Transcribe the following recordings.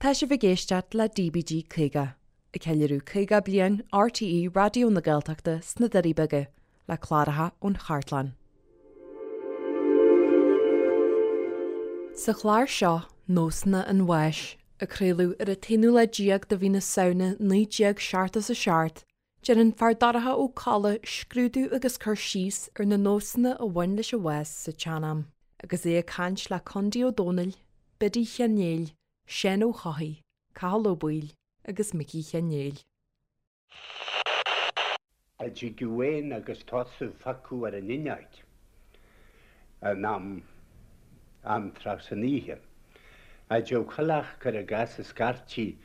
Tá sibh ag éisteacht le DBG 50, ag ceiliúradh 50 bliain RTÉ Raidió na Gaeltachta sna Doirí Beaga, le cláracha ón chartlann. Sa chlár seo, Nósanna an Bháis, a craoladh ar an t-aonú lá déag de mhí na Samhna 1977, Déanann Feardorcha Ó Colla scrúdú agus cur síos ar na nósanna a bhain leis an bhás sa tsean-am, agus é ag caint le Condaí Ó Dónaill, Biddy Sheáin Néill, Seán Ó hEochaidh, Cathal Ó Baoill agus Micí Sheáin Néill. A dtigeadh éan agus tosú phiocadh ar an fhuinneoig in am am tráth san oíche. A dtéadh coileach cuir i gcás ag scairtigh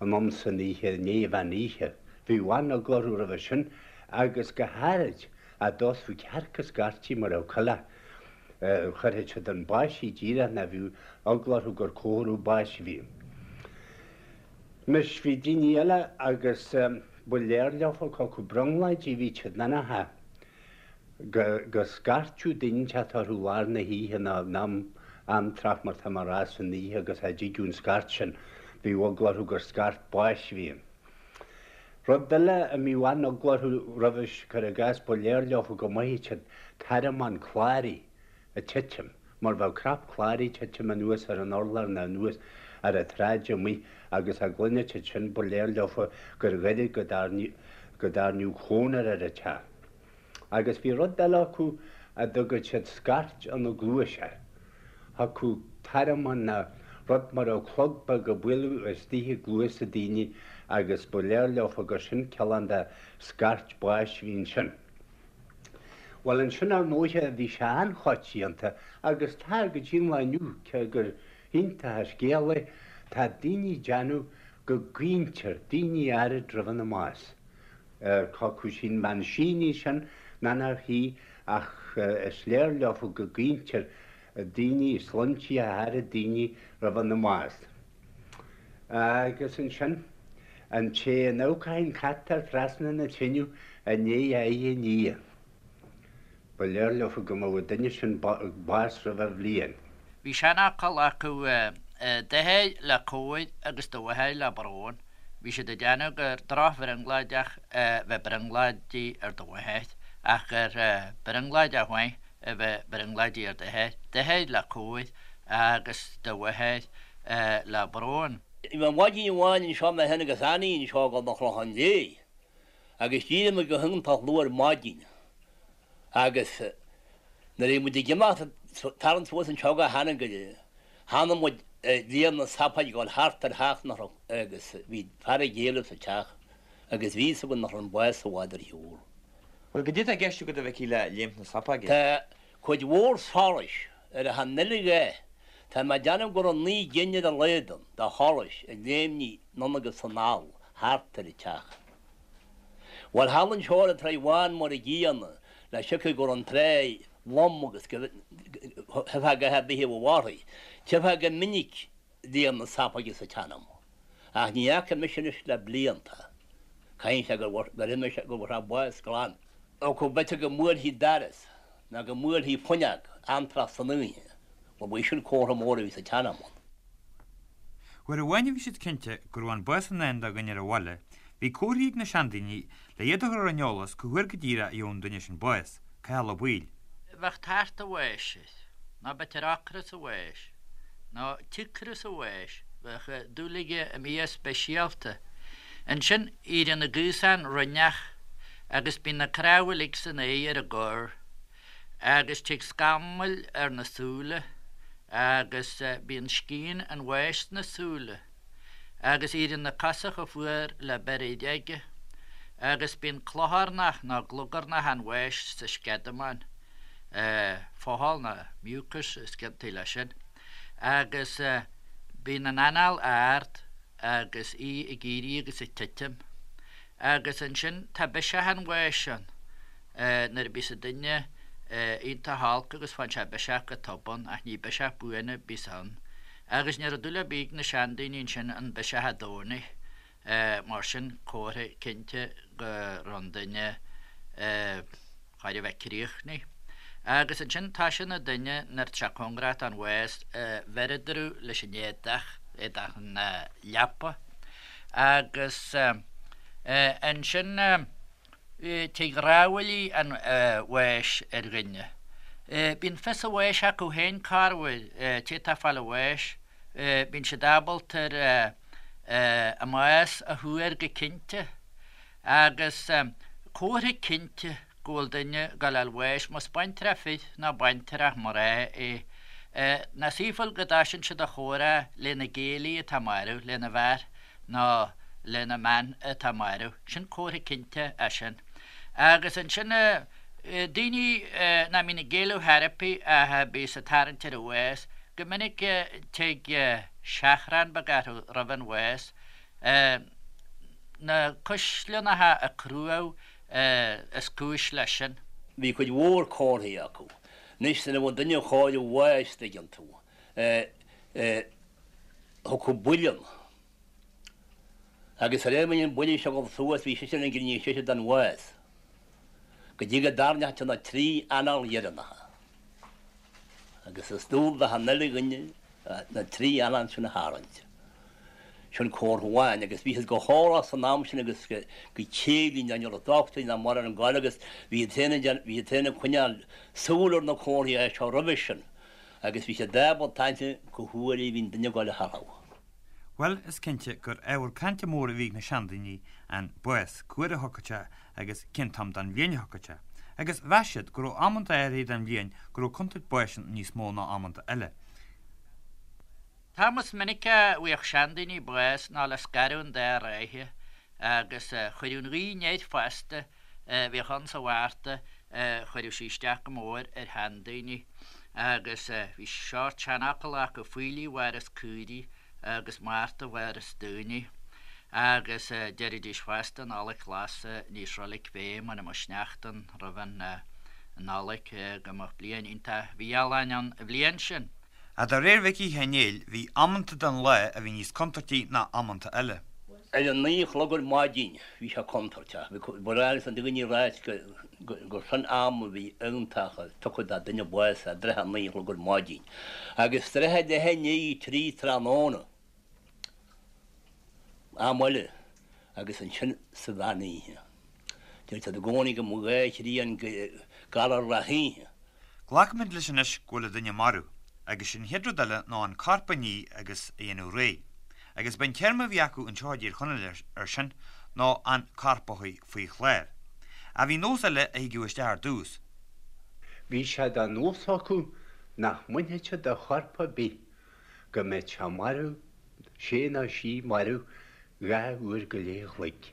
in am san oíche i ndiaidh mheán oíche. Bhíodh an-eagla orthu roimhe sin agus go háirid a dtosódh cearc ag scairtigh mura raibh coileach. Chuirfeadh siad an báisigh díreach ná bhíodh eagla orthu gur comhartha báis a bhí ann. Anois bhí daoine eile agus ba léir leofa cé acu brionglóidí a bhí siad nó nach ea. go scairteadh duine inteacht orthu lár na hoíche nó in am am tráth mar tá mé a rá san oíche agus a dtigeadh an scairt sin bhíodh eagla orthu gur scairt báis a bhí ann. Rud eile a mbíodh an-eagla orthu roimhis, cuir i gcás, ba léir leofa go maithfeadh siad tormán cláraí ag titim mar bheadh crap cláraí ag titim anuas ar an urlár nó anuas ar an tsráid amuigh agus a gcluinfeadh siad sin ba léir leofa gur ghoirid go dtairneodh cónra ar an teach. Agus bhí rud eile acu a dtugadh siad scairt ina gcluais air. Thiocfadh tormán ná rud mar a bheadh clog beag ag bualadh istigh i gcluasa daoine agus ba léir leofa gur sin cineál de scairt báis a bhí ansin. Bhuel ansin ar ndóighe bhí sé an-choitianta agus tá go dtí an lá inniu, cé gur iontach an scéal é, tá daoine ag déanamh go gcaointear daoine áirid roimh ina mbás. Cé acu sin bean sí sin ná nach í ach is léir leofa go gcaointear daoine, sloinntí áirid daoine roimh ina mbás. Agus ansin, an té a n-amharcfadh an cat air trasna na teineadh i ndiaidh a aghaidh a ní. Ba léir leofa go mbeadh an duine sin bás roimh a bhliain. Bhí seanfhocal acu d'athair le cóir agus do mháthair le brón. Bhí siad ag déanamh gur drochbhrionglóideach a bheith brionglóidí ar do mháthair ach gur brionglóideach mhaith a bheith brionglóidí ar d'athair. D'athair le cóir agus do mháthair le brón. Bhí maidin amháin anseo mé féin agus Annie anseo ag dul don Chlochán Léith agus d'éirigh muid go hiontach luath ar maidin agus nuair a bhí muid ag imeacht tarraingt suas anseo go hAnagaire chonaic muid léim na sapóige ag dul thart ar theach nach raibh agus bhí fear ag éalú sa teach agus bhí fhios againn nach raibh an bás i bhfad ar shiúl. Bhuel, goidé tá i gceist agat a Mhicí le léimt na sapóige? Tá cuid mhór solais ar achan uile dhath. Tá mé ag déanamh go raibh 9 gcinn ar a laghad ann de sholais ag léimnigh anonn agus anall thart ar an teach. Bhuel, thall anseo ar an Tráigh Bhán mar a gcéanna, le siocair go raibh an tráigh lom agus go dtchífeá a dhath ar bith a bheadh uirthi. Tchífeá go minic léim na sapóige sa tsean-am. Ach ní fhaca mise anois le blianta. Caithfidh sé gur imigh sé, go bhfuair sé bás glan. Ó go b'fhéidir go mbuailfí doras ná go mbuailfí fuinneog amantráth san oíche, bhuel, ba é sin comhartha mór a bhí sa tsean-am ann. Uair amháin a bhí siad cinnte go raibh an bás i ndán do dhuine ar an bhaile, bhí comharthaí ag na seandaoine le iad a chur ar an eolas cá huair go díreach a gheobhadh an duine sin bás, Cathal Ó Baoill. Bheadh tart a' bháis air, nó b'fhéidir ocras a bháis, nó cíocras a bháis, bheadh dúil aige i mbia speisialta. Ansin, éiríonn na gaosáin rinneach agus bíonn na cnámha uilig san aer ar an gcorr. agus tig scamaill ar na súile agus bíonn scian an bháis sna súile agus éiríonn na cosa chomh fuar le beiréid aige agus bíonn clocharnach nó glugarnach an bháis sa sceadamán, fothal nó mucus is ciontaí leis sin, agus bíonn an anáil ard agus í ag éirí agus ag titim agus ansin tá biseach an bháis ann. Nuair a bíos an duine iontach holc agus faigheann sé biseach go tobann, ach ní biseach buan a bíos ann. Agus ní raibh dúil ar bith ag na seandaoine ansin an biseach a domhnaigh, mar sin comhartha cinnte go raibh an duine chóir a bheith críochnaithe. Agus ansin tá sé ina duine nuair tá sé cóngarach don bhás, bheireadar leis an éadach. éadach na leapa agus ansin tig rámhaillí an bháis ar dhuine. Bíonn fios a bháis acu féin corruair, té atá ag fáil a bháis, bíonn siad ábalta ar a mbás a thuar go cinnte agus comhartha cinnte go bhfuil duine ag gabháil a fháil bháis, más baintreach fir nó baintreach mná é, ná saothúil go dtoisíonn siad a chomhrá lena gcéilí atá marbh, lena bhfear nó lena mbean atá marbh. Sin comhartha cinnte é sin. Agus ansin daoine nach mbíonn ag géilleadh chor ar bith ach a bíos ag tarraingt ar an bhás, go minic tig seachrán beag orthu roimh an bhás, na cuisleannacha ag cruadh is cúis leis sin. Bhí cuid mhór comharthaí acu. Anois nuair a bheadh duine chóir a bháis, dtuigeann tú, thiocfadh buille ann. Agus de réir mar bhí an buille seo ag dul suas, bhí seisean ag grinneadh seisean don bhás. Go dtí go dtarraingeodh sé na trí anáil dheireanacha. Agus is dual d'achan uile dhuine na trí anáil sin a tharraingt. Sin comhartha amháin. Agus bhí siad go heolach san am sin agus go céillí ná ní raibh dochtúirí ná mórán ag goil agus bhí siad féin ag bhí siad féin ag coinneáil súil ar na comharthaí seo roimhe sin agus bhí siad ábalta aithne cá huair a bhí an duine ag goil a tharrtháil. Bhuel, is cinnte gur ábhar cainte mór a bhí ag na seandaoine an bás, cá huair a thiocfadh sé agus cén t-am den bhliain a thiocfadh sé. Agus mheas siad go raibh amanta áirithe den bhliain go raibh contúirt báis ann níos mó ná amanta eile. T-am is minice a bhfaigheadh seandaoine bás ná le scaradh an dá ráithe agus chuireadh an ghaoth anoir fosta a bhíodh ann sa Mhárta, chuireadh sí isteach go mór ar sheandaoine agus bhí seort seanfhocal acu, faoiligh a mhaireas caoirigh agus Márta a mhaireas daoine. Agus deiridís fosta, Nollaig ghlas ní is roilig fé mura mbeadh sneachta ann roimh an Nollaig, go mbeadh bliain iontach mhí-ádhúil ann an bhliain sin. Ach de réir Mhicí Sheáin Néill bhí amanta den lá a bhí níos contúirtí ná amanta eile. Ar a naoi a chlog ar maidin bhí sé contúirteach. Bhí ba ghnách leis na daoine a ráit gur sin am a bhí iontach tugtha do duine bás i dtrátha a naoi a chlog ar maidin. Agus trátha leath i ndiaidh a trí tráthnóna am eile agus ansin sa mheán oíche. Deir siad i gcónaí go mbeadh dhá thrian galar gach oíche. Glacaimid leis anois go bhfuil an duine marbh, agus sé'n chéad rud eile ná an corp a ní agus a dhéanamh réidh. Agus b'é an téarma a bhí acu anseo i dTír Chonaill air sin ná an corp a shuí faoi chlár. Ach bhí nós eile a thigeadh isteach ar dtús. Bhí sé de nós acu nach mbainfeadh siad de chorp ar bith go mbeadh sé marbh, sé nó sí marbh dhá uair go leith a chloig.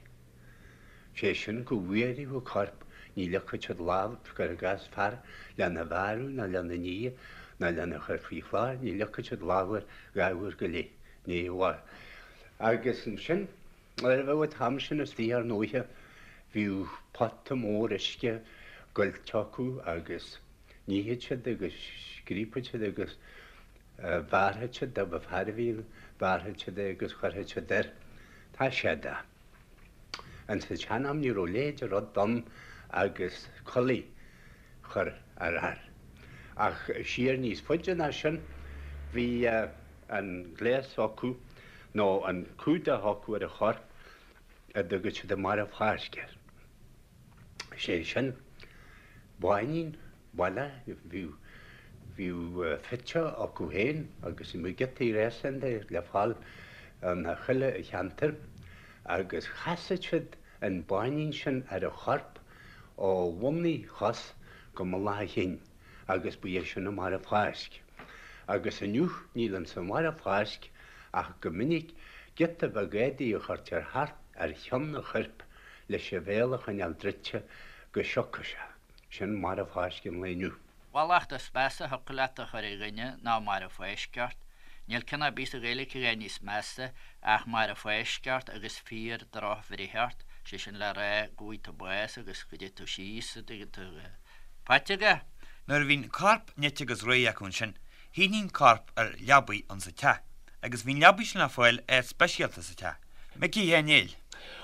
Sé sin go bhfuarfadh an corp, ní leagfadh siad lámh, cuir i gcás fear lena bhearradh ná lena ní ná lena chur faoi chlár, ní leagfadh siad lámh air dhá uair go leith, ní amháin. Agus ansin, nuair a bheadh an t-am sin istigh ar ndóighe, bhíodh pota mór uisce goillte acu agus nífeadh siad agus scríobfadh siad agus bhearrfadh siad, dá mba fear a bhí ann, bhearrfadh siad é agus chuirfeadh siad air. Tá sé de. Ins an tsean-am ní raibh a leithéid de rud ann agus culaith chur ar fhear. Ach siar níos faide ná sin bhí an gléas acu nó an cumhdach acu ar an chorp a dtugadh siad an marbh-fháisc air. Sé sin báinín baile, bhíodh, bhíodh fite acu féin agus bhíodh giotaí réasún de le fáil in chuile cheantar agus chasadh siad an báinín sin ar an chorp ó bhun a chos go mullach a chinn agus ba é sin an marbh-fháisc. Agus inniu níl ins an mharbh-fháisc ach go minic giota beag éadaigh a chuirtear thart ar cheann an choirp leis a bhéal a choinneáil druidte go siocfadh sé. Sin marbh-fháisc an lae inniu. Mallacht is measa a thiocfadh leat a chur ar dhuine ná marbh-fháisc ort. Níl ceann ar bith sa Ghaeilge a dhath níos measa ach marbh-fháisc ort agus fíor droch-bhreith ort, sé sin le rá go bhfaighidh tú bás agus go dté tú síos, an dtuigeann tú. Faighte agat? Nuair a bhí'n corp nite agus réidh acu ansin, shuítí an corp ar leabaidh ins an teach, agus bhí'n leabaidh sin le fáil áit speisialta sa teach. Micí Sheáin Néill.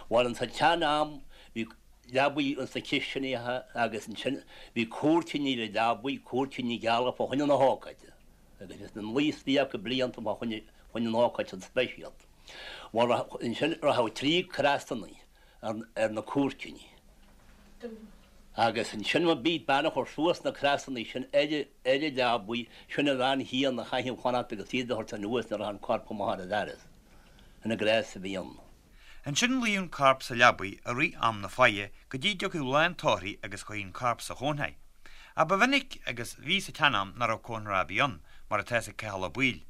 Bhuel, ins an tsean-am bhí leabaidh ins na cistineacha agus ansin bhí cúirtíní ar an leabaidh, cúirtíní geala fá choinne na hócáide agus bhí siad ina luí istigh acu blianta fá choinne. Fá choinne an ócáid san speisialta. Bhuel, ansin rachadh 3 crosanna ar na cúirteanna. Agus ansin má bhí bean a chur suas na crosanna sin ar an leabaidh, sin an bhean chéanna a chaithfeadh fanacht agus iad a thabhairt anuas nuair a rachadh an corp amach ar an doras. Sin an gnás a bhí ann. Ansin luíodh an corp sa leabaidh i rith am na faire go dtí dtiocfadh lá an tórraimh agus chuirthí an corp sa chónra. Ach ba mhinic agus bhí sa tsean-am nach raibh cónra ar bith ann, mar atá ag Cathal Ó Baoill.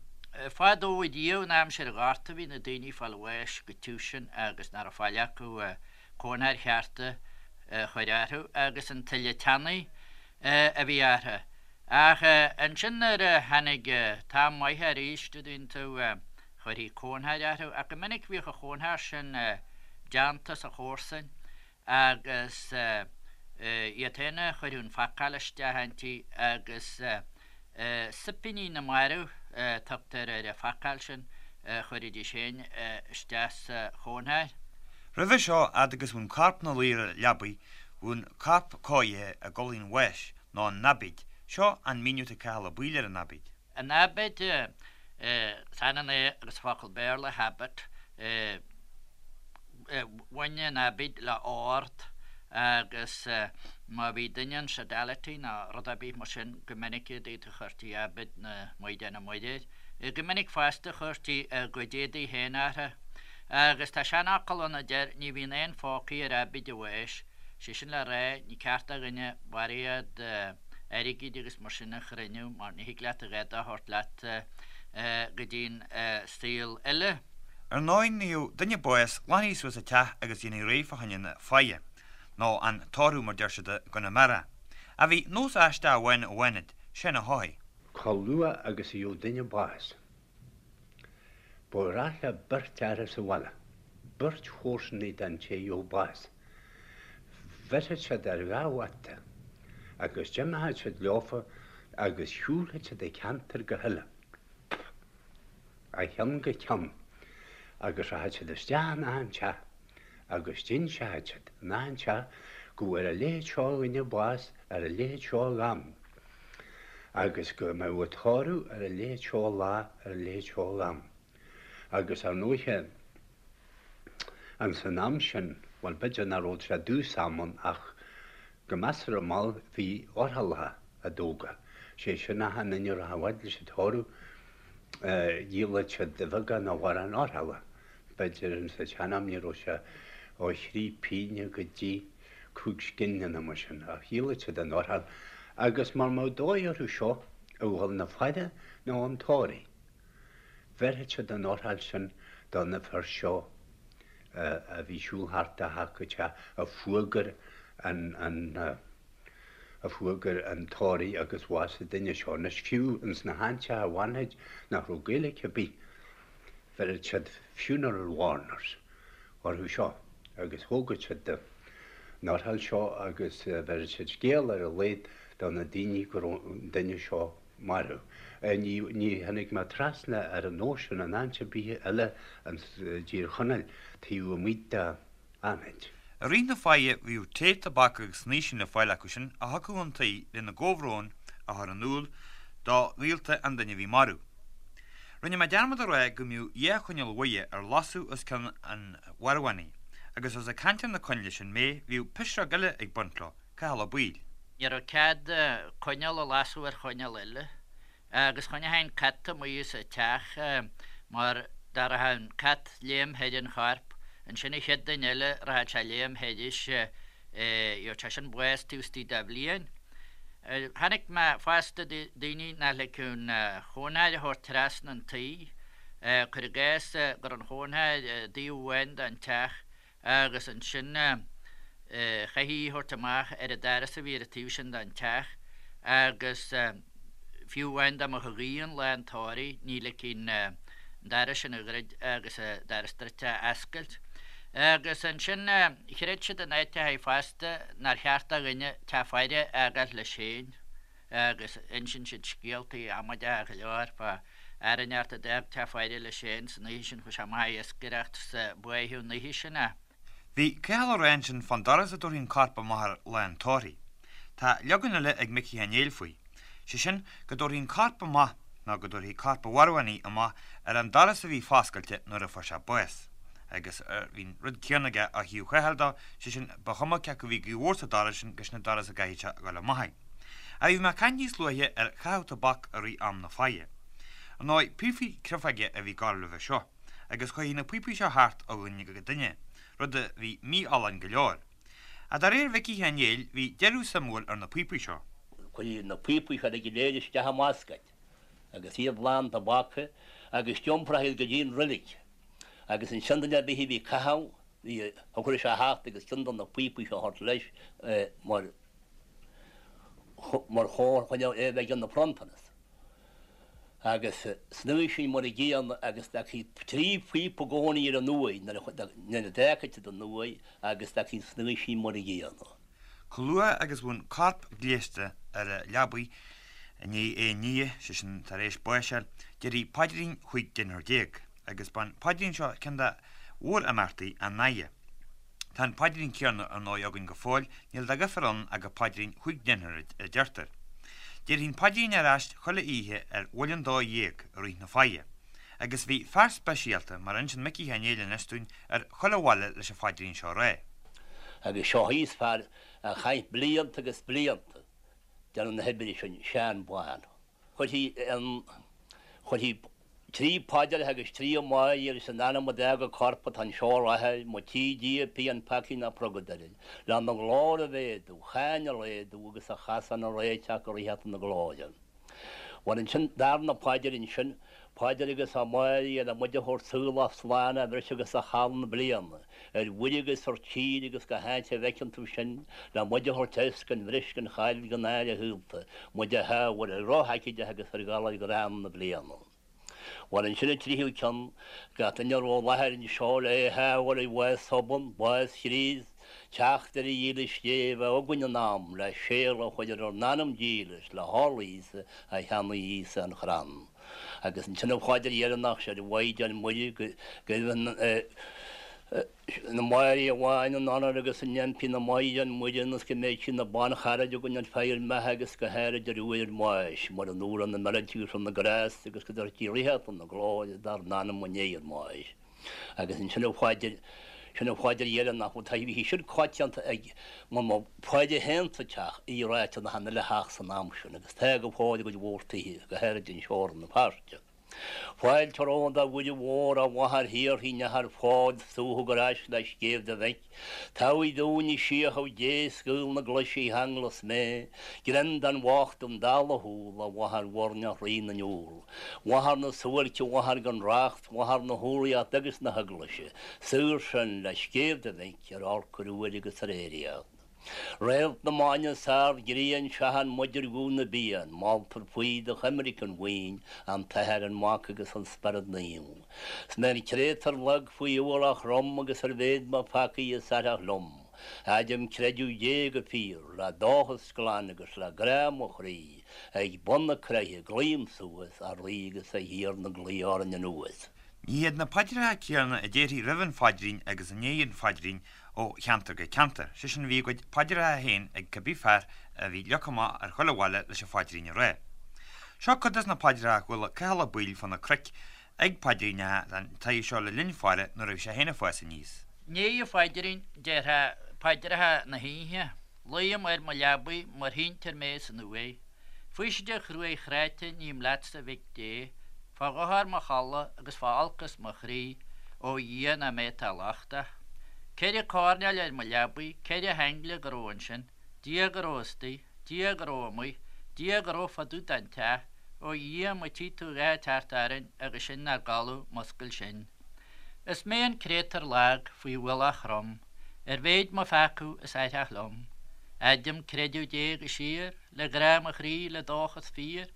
Fadó riamh in aimsir an Ghorta bhí na daoine ag fáil bháis go tiubh sin agus nach raibh faill acu cónra cheart a chur orthu agus an tuile teannaidh a bhí orthu. Ach ansin nuair a tháinig t-am maith arís, an dtuigeann tú, chuirthí cónra orthu ach go minic bhíodh an chónra sin déanta sa chomharsain agus iad féin a chuireadh an phacáil isteach inti agus soipíní na marbh a tugtar ar an phacáil sin a chuiridís féin isteach sa chónra. Roimhe seo, fhad agus bhí an corp 'na luí ar an leabaidh, bhí an corp cóirithe ag dul chun bháis, nó an aibíd. Seo an míniú atá ag Cathal Ó Baoill ar an aibíd. An aibíd, is ionann é agus focal Béarla habit, bhain an aibíd le ord agus má bhí duine in sodality nó rud ar bith mar sin go minic i dtaobh chuirtí aibíd na Maighdeana Muire air. Go minic fosta chuirtí a gcuid éadaí féin orthu. Agus tá seanfhocal ann a deir ní bhíonn aon phócaí ar aibíd an bháis. Sé sin le rá, ní ceart do dhuine barraíocht airgid agus mar sin a chruinniú mar ní thig leat a dhath de a thabhairt leat go dtí'n saol eile. Ar ndóigh nuair a gheobhadh duine bás ghlanfaí suas an teach agus dhéanfaí réidh fá choinne na faire, nó an tórramh mar deir siad i gConamara. Ach bhí nós aisteach amháin i bhFánaid, Seán Ó hEochaidh. Chomh luath agus a gheobhadh duine bás, ba ghnách le beirt fhear sa bhaile, beirt chomharsanaí den té a gheobhadh bás. Bheirfeadh siad ar dha bhata agus d'imeochadh siad leofa agus shiúlfadh siad an ceantar go huile, ó cheann go ceann, agus rachadh siad isteach in achan teach agus d'inseochadh siad in achan teach go bhfuair a leithéid seo de dhuine bás ar a leithéid seo d'am agus go mbeadh an tórramh ar a leithéid seo lá ar a leithéid seo d'am. Agus ar ndóiche, ins an am sin, bhuel, b'fhéidir nach raibh sé i dtús am ann ach go measartha mall bhí ofrálacha á dtógáil. Sé sin achan duine a rachadh a fhad leis an tórramh, dhíolfadh siad de bheagán nó a mhórán ofrála. B'fhéidir ins an tsean-am ní raibh sé ó thrí pínne go dtí chúig scilling nó mar sin ach dhíolfadh siad an ofráil agus mara mbeadh dóigh orthu seo a dhul 'na faire nó 'un tórraimh. Bheirfeadh siad an ofráil sin do na fir seo a bhí ag siúl thart ó theach go teach a fuagair an a fuagair an tórramh agus bhásaigh duine seo. Anois fiú ins na háiteacha i bhFánaid nach raibh Gaeilge ar bith bheireadh siad funeral warners orthu seo agus thógadh siad an ofráil seo agus bheireadh siad scéal ar a laghad do na daoine go raibh an duine seo marbh. Ní tháinig mé trasna ar an nós sin in áit ar bith eile ins dTír Chonaill taobh amuigh de Fhánaid. I rith na faire bhíodh tae, tobac agus snaoisín le fáil acu sin a thiocfadh chun tí lena gcomhbhrón a chur in iúl do ghaolta an duine a bhí marbh. Rinne mé dearmad a rá go mbíodh dhá choinneal mhaithe ar lasadh os cionn an mharbhánaigh agus os ag caint ar na coinnle sin mé bhíodh pisreog eile ag baint leo, Cathal Ó Baoill. Ní raibh cead coinneal a lasadh ar choinneal eile agus choinneochaí an cat amuigh as an teach mar dá rachadh an cat léim thar an chorp, ansin an chéad duine eile rachadh sé léim thairis, gheobhadh sé sin bás taobh istigh de bhliain. Chonaic mé fosta daoine nach ligfeadh an chónra a thabhairt trasna an tí, cuir i gcás go raibh an chónra i dtaobh amháin den teach agus ansin chaithfí í a thabhairt amach ar an doras a bhí ar an taobh sin den teach agus fiú amháin dá mbeadh an ghaoth ann lá an tórraimh ní ligfí an doras sin a dhruid agus an doras druidte a oscailt. Agus ansin chreid siad in áiteachaí fosta nár cheart do dhuine teach faire a fhágáil leis féin. agus insíonn siad scéaltaí amaideacha go leor fá fhear inteacht a d'fhág teach faire leis féin san oíche sin, chuaigh sé amach ag iascaireacht 's báitheadh an oíche sin é. Bhí Cathal ag rá ansin fán doras a dtabharfaí an corp amach air lá an tórraimh. Tá leagan eile ag Micí Uí Néill faoi, sé sin go dtabharfaí an corp amach. ná go dtabharfaí corp an mharbhánaigh amach ar an doras a bhí foscailte nuair a fuair sé bás. Agus bhí an rud céanna aige ó thaobh Chathail dó, sé sin, ba chuma cé acu a bhí gaoth mhór sa doras sin gus na doras a gcaithfeadh sé a ghoil amach é. Ach bhí mé ag caint níos luaithe ar chaitheamh tobac i rith am na faire. Ar ndóigh, píopaí creafóige a bhí ag gabháil roimhe seo, agus chuaigh na píopaí seo thart ó dhuine go duine, rud a bhí mífholláin go leor. Ach de réir Mhicí Sheáin Néill, bhí deireadh suimiúil ar na píopaí seo. Chuirtí na píopaí seo go léir isteach i mbascaed agus iad lán tobac agus d'iompraithe iad go dtí an roilig agus ansin duine ar bith a bhí ag caitheamh bhí thiocfadh leis a theacht agus ceann de na píopaí seo a thabhairt leis mar mar chomhartha chun é a bheith ina phronntanas. Agus san uaigh sin mar a gcéanna agus d'fhágfaí trí phíopa i gcónaí ar an uaigh nuair a d'fhágfaí siad an uaigh agus d'fhágfaí an snaoisín mar a gcéanna. Chomh luath agus a bhí an corp gléasta ar a leabaidh i ndiaidh é a nighe, sé sin tar éis báis a fháil, déarfaí paidrín chúig deichniúr déag, agus b'an paidrín seo ceann de mhór-imeachtaí an fhaire. Tá an paidrín céanna ar ndóigh againn go fóill, níl de dhifear ann ach gur paidrín chúig deichniúr a deirtear. Déarfaí an paidrín ar ais chuile oíche ar bhuille an dó dhéag i rith na faire. Agus bhí fear speisialta, mar a inseann Micí Sheáin Néill anois dúinn, ar chuile bhaile leis an phaidrín seo a rá. Agus seo thíos fear a chaith blianta agus blianta déanamh na hoibre sin, Seán Bán. Chuirfí an, chuirfí trí phaidir agus trí Mháire agus in ainm a d'fhág a corp atá anseo i láthair, má tchí Dia pian peacaí ná purgadóir, lena ghlóir a mhéadú, cháin a laghdú agus a chasán a réiteach go ríocht na glóire. Bhuel ansin, darna paidir ansin, Paidir agus a Mháire le muid a thabhairt saolach slán á bhris agus a chaill na bliana, ar mhuir agus ar tír agus gach áit a bhfeiceann tú sinn, le muid a thabhairt as gan bhris gan chaill gan náire shaolta, muid a shábháil ar dhroch-aicídeach agus ar ghalair ghránna na bliana. Bhuel ansin an tríú ceann, gach duine a raibh i láthair anseo le é a shábháil ar bhás thobann, bás Chríost, teacht ar a dhílis Dé a bheith againn in am le séala a chur ar ár n-anam dílis le horlaí Íosa a cheannaigh Íosa an chrann. Agus ansin an phaidir dheireanach, 'Sé an Mhaighdean Muire go raibh na Máire amháin in onóir agus in impí na Maighdean Muire ionas go mbeidh sí ina bancharaid againn ar feadh ár mbeatha agus go háirid ar uair ár mbáis, mar an uair na meirte agus na grásta agus go dtabharfaidh sí ríocht na glóire dár n-anam i ndiaidh ár mbáis. Agus ansin an phaidir, sin an phaidir dheireanach, bhuel tá, bhí sin coitianta ag, mar má phaidir féin sa teach, í ráite in achan uile theach san am sin, agus tá go fóill i gcuid mhór tithe, go háirid anseo i Rann na Feirste. Fáilte romhat a Mhuire Mhór, a Mháthair shaortha neach ar fáil, suathadh ar ais le scéimh do mhic. Tabhaigh dúinn i síothadh Dé, scaoil na glaise cheanglas mé, greim don bhocht don dall a shúil, a Mháthair mhuirneach Rí na n-úll. Mháthair na suáilce, Mháthair gan racht, Mháthair na humhlaíochta agus na hEaglaise, saor sinn le scéimh do mhic ar olc ar uair agus ar aeraíocht. Réalt na mban is ard grian seachain muid ar ghuth na bpian, moltar faoi do choimirce an bhuíon, an tAthair, an Mac agus an Spiorad Naomh. 'S mé an créatúr lag faoi ualach throm agus ar mhéid mo pheacaí is aithreach liom, Adhraim creideamh Dé go fíor, le dóchas glan agus le grá mo chroí, Ag bun na croiche glaoim suas, a Rí agus a Thiarna glaoigh orainn anuas. Ní hiad na paidreacha céanna a déarfaí roimh an phaidrín agus i ndiaidh an phaidrín ó cheantar go ceantar, sé sin bhí a gcuid paidreacha féin ag cibé fear a bhí leagtha amach ar chuile bhaile leis an phaidrín a rá. Seo cuid des na paidreacha a chuala Cathal Ó Baoill fá na cnoic ag paidríneacha den tsaghas seo le linn faire nuair a bhí sé féin ag fás aníos. I ndiaidh an phaidrín déarfá paidreacha na hoíche. Luím ar mo leabaidh mar shíntear mé san uaigh. Faoiside chruaidh chráite ním leatsa a Mhic Dé, fá dhochar mo chodladh agus fá olcas mo chroí, ó Dhia ná mé atá lochtach. Ceithre coirnéal ar mo leabaidh, ceithre haingle go raibh ansin, Dia go raibh istigh, Dia go raibh amuigh, Dia go raibh fá dtaobh den teach, ó Dhia má tchí tú a dhath ag teacht orainn agus sinn 'nár gcodladh muscail sinn. Is mé an créatúr lag faoi ualach throm, Ar mhéid mo pheacadh is aithreach liom. Adhraim creideamh Dé go síor, Le grá mo chroí, le dóchas fíor.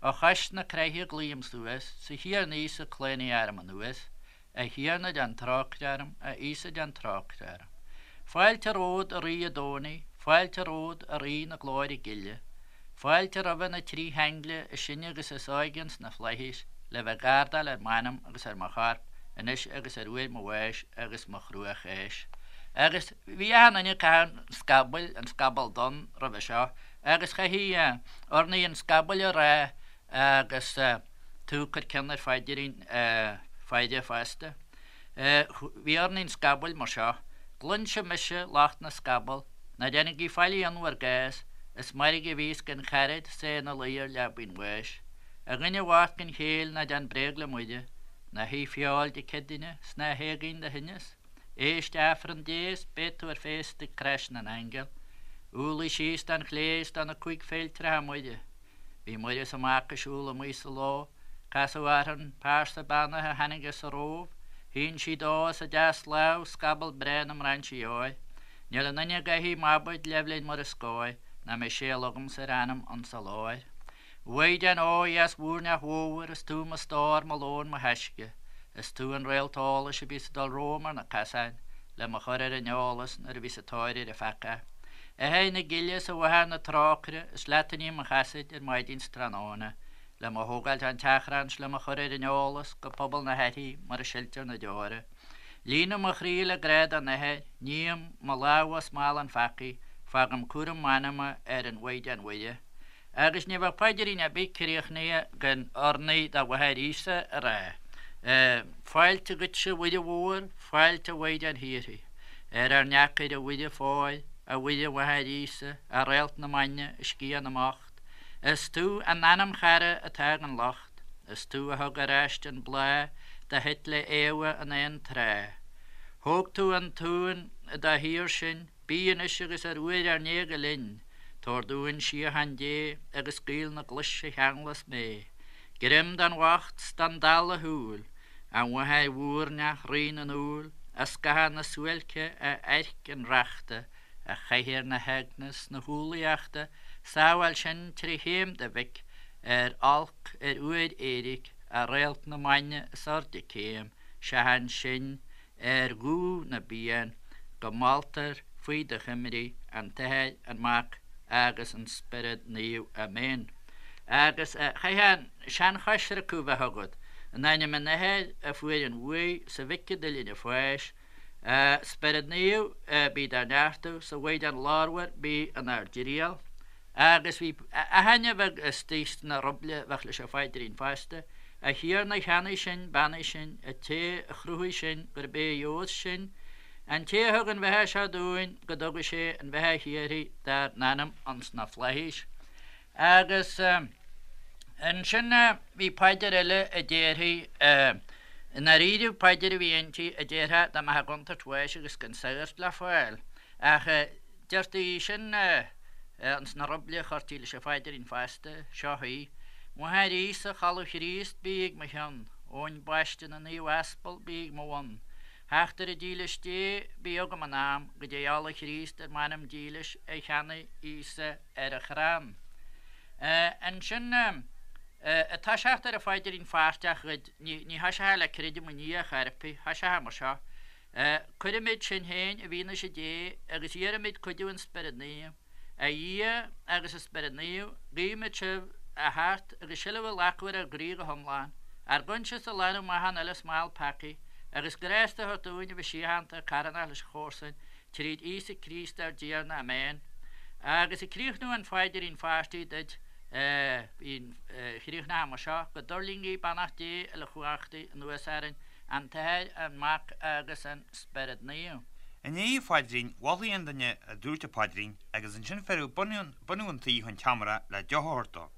Ó chois na croiche glaoim suas, 'S a Thiarna Íosa claonaigh arm anuas, A Thiarna déan trócaire orm, A Íosa déan trócaire orm. Fáilte romhat a Rí an Domhnaigh, Fáilte romhat a Rí na glóire gile. Fáilte roimhe na trí haingle is sine agus is óige ins na flaithis le bheith ag gardáil ar m'anam agus ar mo chorp anois agus ar uair mo bháis agus mo chruacháis. Agus bhí achan duine ag caitheamh an scabaill, an scaball donn roimhe seo agus chaithfí urnaí an scabaill a rá. Agus tú ag cur ceann ar phaidrín faire fosta. Bhí urnaí an scabaill mar seo, Cluinse mise lucht na scaball, ná déanaigí faillí ionn bhur gcás, is mairg a bhíos gan charaid 's é ina luí ar leabaidh an bháis. A dhuine bhoicht gan chéill ná déan bréag le Muire, ná hith feoil Dé Céadaoine 's ná héag aon do thinneas. Éist Aifreann Dé 's beidh tú ar féasta ag Crois na nAingeal. Umhlaigh síos don chlé 's do na cúig féiltreacha Muire. Bhí Muire is a Mac ag siúl amuigh sa ló, Casadh orthu an pearsa beannaithe a tháinig as an Róimh, Shín sí dó as a deaslámh scaball breá na mbrainsí óir. Níl aon duine a gcaithfidh m'abaid leibhlinn Muire scóir, ná mbeidh séal agamsa ar a anam ionsa láir. A Mhaighdean ó dheas mhúirneach mhómhar, is tú mo stór, mo lón, mo thaisce, Is tú an réalt eolais a bhíos ag dul romham ar na casáin, le mo chur ar an eolas nuair a bhíos ag tóir ar an pheaca. A Athair na gile is a Mháthair na trócaire, is leat a ním mo chasaoid ar maidin 's tráthnóna, le mo thógáilt ón tseachrán 's le mo chur ar an eolas go pobal na haithrí mar a siltear na deora. Líonaim mo chroí le grá don Athair, ním mo lámha ó smál an pheacaí, fágaim cúram m'anama ar an Mhaighdean Mhuire. Agus ní bheadh paidrín ar bith críochnaithe gan urnaí do Mháthair Íosa a rá. Fáilte dhuitse a Mhuire Mhór, fáilte a Mhaighdean Shíoraí. Ar ár ndeacair a Mhuire Phóir, a Mhuire Mháthair Íosa, a Réalt na Maidne, a Sciath na mBocht. Is tú an anamchara atá ag an locht, is tú a thug ar ais an bláth do thit le Éabha in aon tráth. Thóg tú an t-uan dá shaor sinn, Bí anois agus ar uair ár n-éaga linn, tabhair dúinn síocháin Dé agus gaol na gclois a cheanglas mé. Greim don bhocht 's don dall a shúil, a Mháthair mhúirneach Rí na ndúl, a scáth na suáilce, a airc an reachta, a chathaoir na heagna 's na humhlaíochta, sábháil sinn tré chéim do Mhic, ar olc ar uair éiric, a réalt na maidne is airde céim, seachain sinn ar dhúch na bpian, go moltar faoi do choimrí an tAthair, an Mac agus an Spiorad Naomh. Amen. Agus chaithfeá an seanchoisriceadh a bheith agat, in ainm an Athar a fuair an bhuaidh, 's an Mhic a d'fhuiling an pháis, a Spiorad Naomh bí dár neartú, 's a Mhaighdean Ghlórmhar bí inár dtriall. Agus bhí aithinne bheag istigh sna ruible a bheadh leis an phaidrín fosta, A Thiarna a cheannaigh sinn, beannaigh sinn, a té a chruthaigh sinn, gurb é a gheobhas sinn, an té a thug an bheatha seo dúinn, go dtuga sé an bheatha shíoraí dár n-anam ins na flaithis. Agus ansin bhí paidir eile a déarfaí, i ndáiríribh paidir a bhí inti a déarfá dá mbeifeá i gcontúirt bháis agus gan sagart le fáil, ach Deirtí sin ins na ruible a chuirtí leis an phaidrín fosta. Seo í. Mháthair Íosa, Cholbh Chríost, bí ag mo chionn. Abhainn Baiste na Naomh Aspal, bí ag mo bhun. Theachtaire dílis Dé, bí agam in am, go dté ola Chríost ar m'anam dílis a cheannaigh Íosa ar a chrann. Ansin, ag toiseacht ar an phaidrín pháirteach dhuit, ní thoiseofá le Creidim i nDia chor ar bith, thoiseofá mar seo, Cuirimid sinn féin i bhfianaise Dé agus iarraimid cuidiú an Spioraid Naoimh. A Dhia agus a Spiorad Naomh, guímid sibh a theacht agus seilbh a ghlacadh ar ár gcroí go hiomlán, ár gcoinsias a ghlanadh amach ón uile smál peacaí, agus grásta a thabhairt dúinn a bheith síochánta, carthanach leis an chomharsain, tríd Íosa Críost ár dTiarna. Amen. Agus ag críochnú an phaidrín pháirtigh duit, chríochnófá mar seo, Go dtuirlingí beannacht Dé uilechumhachtaigh anuas orainn, An tAthair, an Mac agus an Spiorad Naomh. I ndiaidh an phaidrín, mholfaí an duine a dúirt an paidrín agus ansin fearadh bunadh an tí chun tseomra le deoch a thabhairt dó.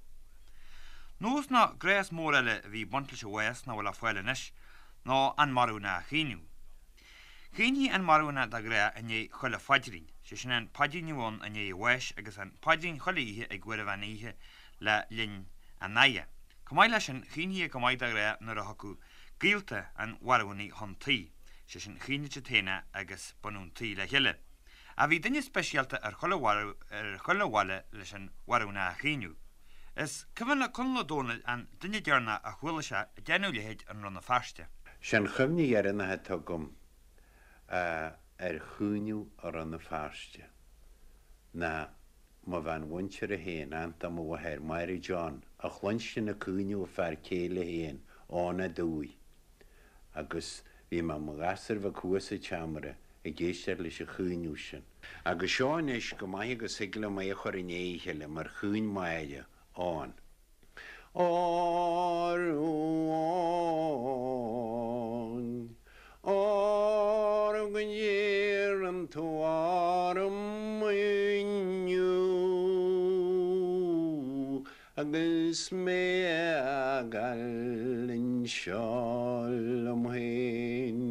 Nós nó gnás mór eile a bhí ag baint leis an bhás nach bhfuil le fáil anois ná an marbhna a chaoineadh. Chaointí an marbhna de ghnáth i ndiaidh chuile phaidrín, sé sin an paidrín a bhí ann i ndiaidh an bháis agus an paidrín chuile oíche ag uair an mheán oíche le linn an fhaire. Chomh maith leis sin, chaointí go maith de ghnáth nuair a thiocfadh gaolta an mharbhúnaigh chun tí, sé sin, chaoinfeadh siad féin é agus bunadh an tí le chéile. Ach bhí duine speisialta ar chuile ar chuile bhaile leis an mharbhna a chaoineadh. Is cuimhin le Conall Ó Dónaill an duine deireanach a chuala sé ag déanamh a leithéid i Rann na Feirste. Sé an chuimhne dheireanach atá agam ar chaoineadh i Rann na Feirste ná mo bhean mhuinteartha féin, aint do mo mháthair, Máire John, a chluinstin ag caoineadh a fear céile féin, Eoghan Ó Dubhaigh, agus bhí mé i mo ghasúr bheag thuas sa tseomra ag éisteacht leis an chaoineadh sin. Agus seo anois go maith agus thig liom é a chur i ndiaidh a chéile mar chaoin Máire, Eoghan. Óró Áine, óró go n-iarrann tú orm inniu agus mé a fhágáil anseo liom féin.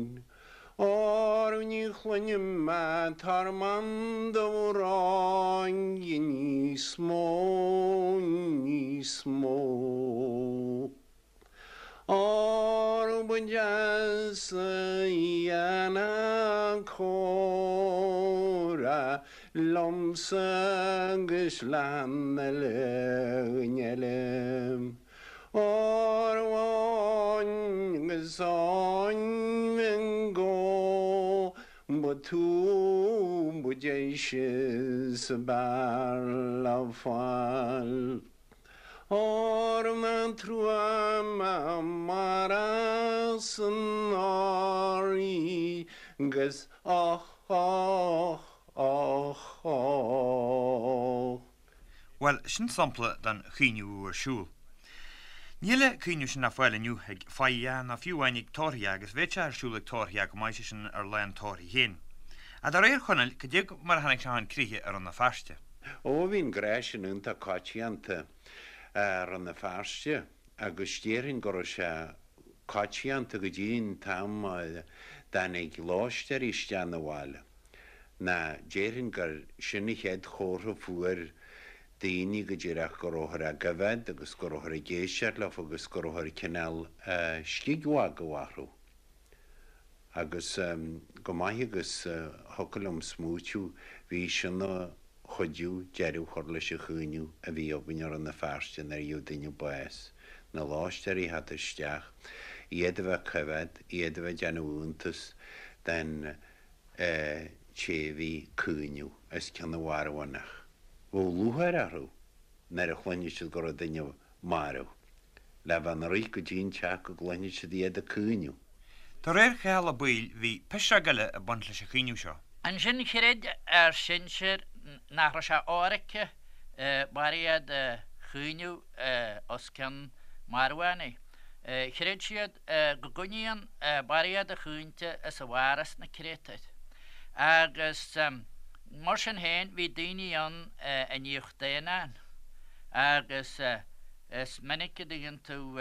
Óró ní chluinim ach tormán d'amhráin níos mó, níos mó. Óró ba deas a dhéanamh comhrá liomsa agus le han uile dhuine eile. Óró Áine agus Áine go ba tú ba deise is ab fhearr le fáil. Óró nach trua mo mhaireas san áirí 'gus och och och och. Bhuel, sin sampla den chaoineadh a bhíodh ar siúl. Níl an caoineadh sin le fáil inniu ag fáidhe ná fiú amháin ag tórraithe agus bheadh sé ar siúl ag tórraithe go maith, sé sin ar lá an tórraimh féin. Ach de réir Chonaill, cad é mar a tháinig sé chun críche i Rann na Feirste? Ó, bhí an gnás sin iontach coitianta i Rann na Feirste agus déarfainn go raibh sé coitianta go dtí an t-am a dtáinig lóistéirí isteach 'na bhaile. Ná déarfainn gur sin an chéad chomhartha fuair daoine go díreach go rabhthar á gcoimhéad agus go rabhthar ag éisteacht leofa agus go rabhthar cineál scig mhagadh orthu. Agus go maith agus thiocfadh liom smaoitiú bhí sin ina chuidiú deireadh a chur leis an chaoineadh a bhí againn i Rann na Feirste nuair a gheobhadh duine bás, na lóistéirí a theacht isteach, iad a bheith ag coimhéad, iad a bheith ag déanamh iontas den té a bhí ag caoineadh os cionn an mharbhánach. Bheadh lúcháir orthu nuair a chluinfeadh siad go raibh duine marbh, le bheith ina rith go dtí an teach go gcluinfeadh siad iad ag caoineadh. De réir Chathail Ó Baoill bhí pisreog eile ag baint leis an chaoineadh seo. Ansin chreid ár sinsir nach raibh sé ionraice barréad a chaoineadh os cionn marbhánaigh. Chreid siad go gcoinníonn barréad a chaointe is a mhaireas na créatúir. Agus mar sin féin bhí daoine ann a níodh daonáin agus is minic a dtuigeann tú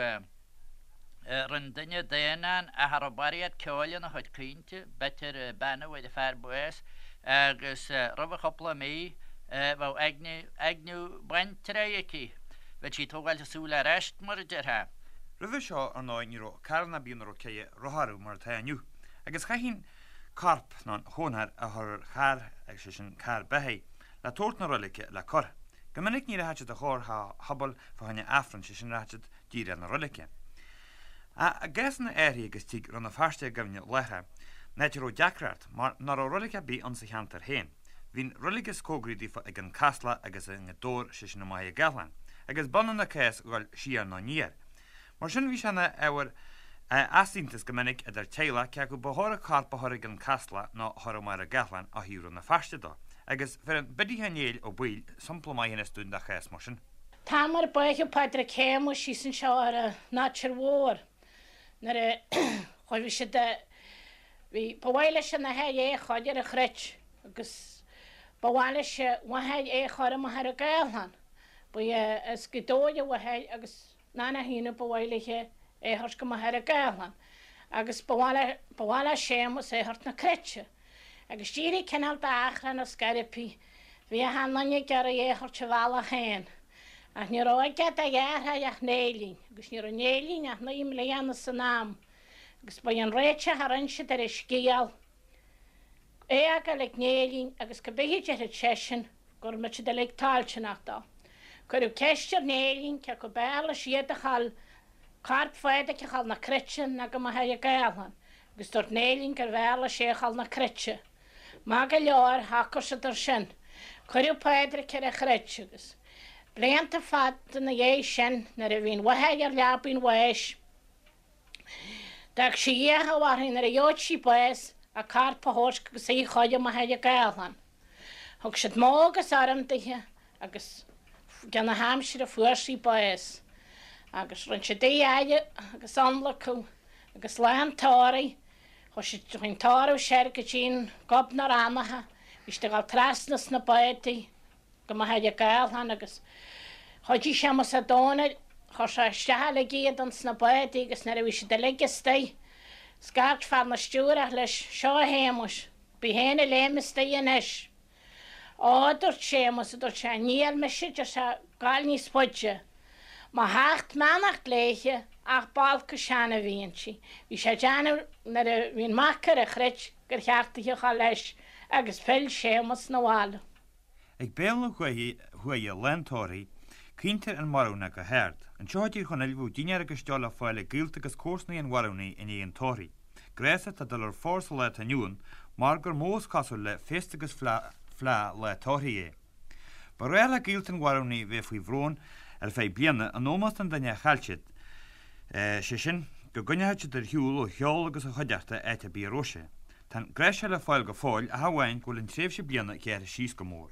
rinne duine daonán ach a raibh barréad ceoil ina chuid caointe, b'fhéidir bean a bhfuair a fear bás agus roimh chúpla mí bheadh eagna baintreabhaigh aici, bheadh sí ag tógáilt a súl ar ais mar a déarfá. Roimhe seo, ar ndóigh, ní raibh carranna ar bith ina raibh ceithre rothar orthu mar atá inniu, agus chaithfí an corp nó an chónra a chur ar charr, sé sin carr beathaí, le tabhairt na roilige le cur. Go minic ní rachadh siad a chóir shobal fá choinne Aifrinn, sé sin rachadh siad díreach na roilige. Ach i gcásanna áirithe agus tig Rann na Feirste i gcuimhne láithreach, in áit a raibh deacracht, mar nach raibh roilig ar bith ann sa cheantar féin. Bhí an roilig is cógaraí daofa ag an Caslach agus i nGaoth Dobhair, sé sin i Machaire Gathlán, agus b'ionann an cás dhul siar nó aniar. Mar sin bhí sé ina ábhar easaontais go minic idir teaghlach cé acu ba chóir an corp a chur ag an Caslach nó a chur i Machaire Gathlán ó thaobh Rann na Feirste dó. Agus bheireann Biddy Sheáin Néill Ó Baoill sampla maith anois dúinn de chás mar sin. T-am ar báitheadh Pádraig Shéamuis síos anseo ar an Nátir Mhór nuair a chuaigh siad a Bhí, ba mhaith leis an athair é a chur ar an chruit agus ba mhaith leis a mháthair é a chur i Machaire Gathlán. Ba as Gaoth Dobhair a mháthair agus ná nach ionadh ba mhaith léithe é a thabhairt go Machaire Gathlán agus ba mhaith le, ba mhaith le Séamus é a thabhairt na cruite. Agus d'éirigh cineál d'achrann ar scor ar bith. Bhí achan nduine ag iarraidh é a thabhairt a bhealach féin. Ach ní raibh aige dá dheartháir ach Néillín agus ní raibh Néillín ach 9 mbliana san am. Agus ba é an réiteach a rinn siad ar an scéal, é a fhágáil ag Néillín agus cibé a déarfadh seisean, go mbeadh siad uilig toilteanach dó. Cuireadh ceist ar Néillín cé acu b'fhearr leis iad a ghabháil, corp Phádraic a ghabháil na cruite ná go Machaire Gathlán, agus dúirt Néillín gurbh fhearr leis é a ghabháil na cruite. Maith go leor, shocair siad ar sin. Cuireadh Pádraic ar an chruit agus, blianta fada ina dhiaidh sin, nuair a bhí an mháthair ar leabaidh an bháis, D'fhág sí iachall uirthi nuair a gheobhadh sí bás a corp a thabhairt agus í a chur i Machaire Gathlán. Thug siad modh agus urraim dithe agus i gcionn na haimsire fuair sí bás. Agus rinne siad í a fhaire agus ionlacadh agus lá an tórraimh, chuaigh siad, chuaigh an tórramh soir go dtí'n Gob na Rannacha, bhí siad ag dul trasna sna bádaí go Machaire Gathlán agus chuidigh Séamus Ó Domhnaill, chuir sé isteach uilig iad ins na bádaí agus nuair a bhí siad uilig istigh, scairt fear na stiúrach leis, Seo a Shéamuis, bí féin a léim istigh anois. Ó, a dúirt Séamus, a dúirt sé, níl mise, deir sé, gabháil níos faide. Mo sheacht mbeannacht léithe ach b'olc an sean a bhí inti. Bhí sé ag déanamh nuair a bhí an mac ar an chruit gur cheart di a dhul leis agus phill Séamus 'na bhaile. Ag béal na huaighe lá an tórraimh, caointear an marbhna go hard. Anseo i dTír Chonaill bheadh dinnéar agus deoch le fáil ag gaolta agus comharsanaí an mharbhnaí i ndiaidh an tórraimh. Gnás atá ag dul ar phár sa lá atá inniu ann mar gur mó is cosúil le féasta agus fleá lá tórraimh é. Ba ghnách le gaolta an mharbhnaí bheith faoi bhrón ar feadh bliana in ómós don duine a chaill siad, sé sin, go gcoinneodh siad ar shiúl ó cheol agus ó chuideachta áit ar bith a raibh sé. Tá an gnás seo le fáil go fóill ach amháin go bhfuil an tréimhse bliana gearrtha síos go mór.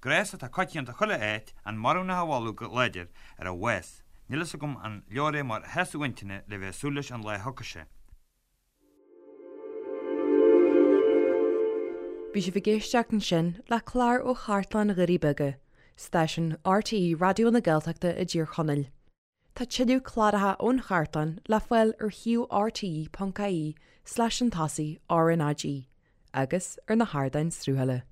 Gnás atá coitianta chuile áit, an marbhnach a mholadh go láidir ar a bhás. Níl fhios agam an leor é mar shásamh intinne le bheith ag súil leis an lá a thiocfaidh sé. Bhí sibh ag éisteacht ansin le clár ó Chartlann Dhoirí Beaga, stáisiún RTÉ Raidió na Gaeltachta i dTír Chonaill. Tá tuilleadh cláracha ón chartlann le fáil ar shuíomh rte.ie slash chun tosaigh RnaG agus ar na hardáin sruthála.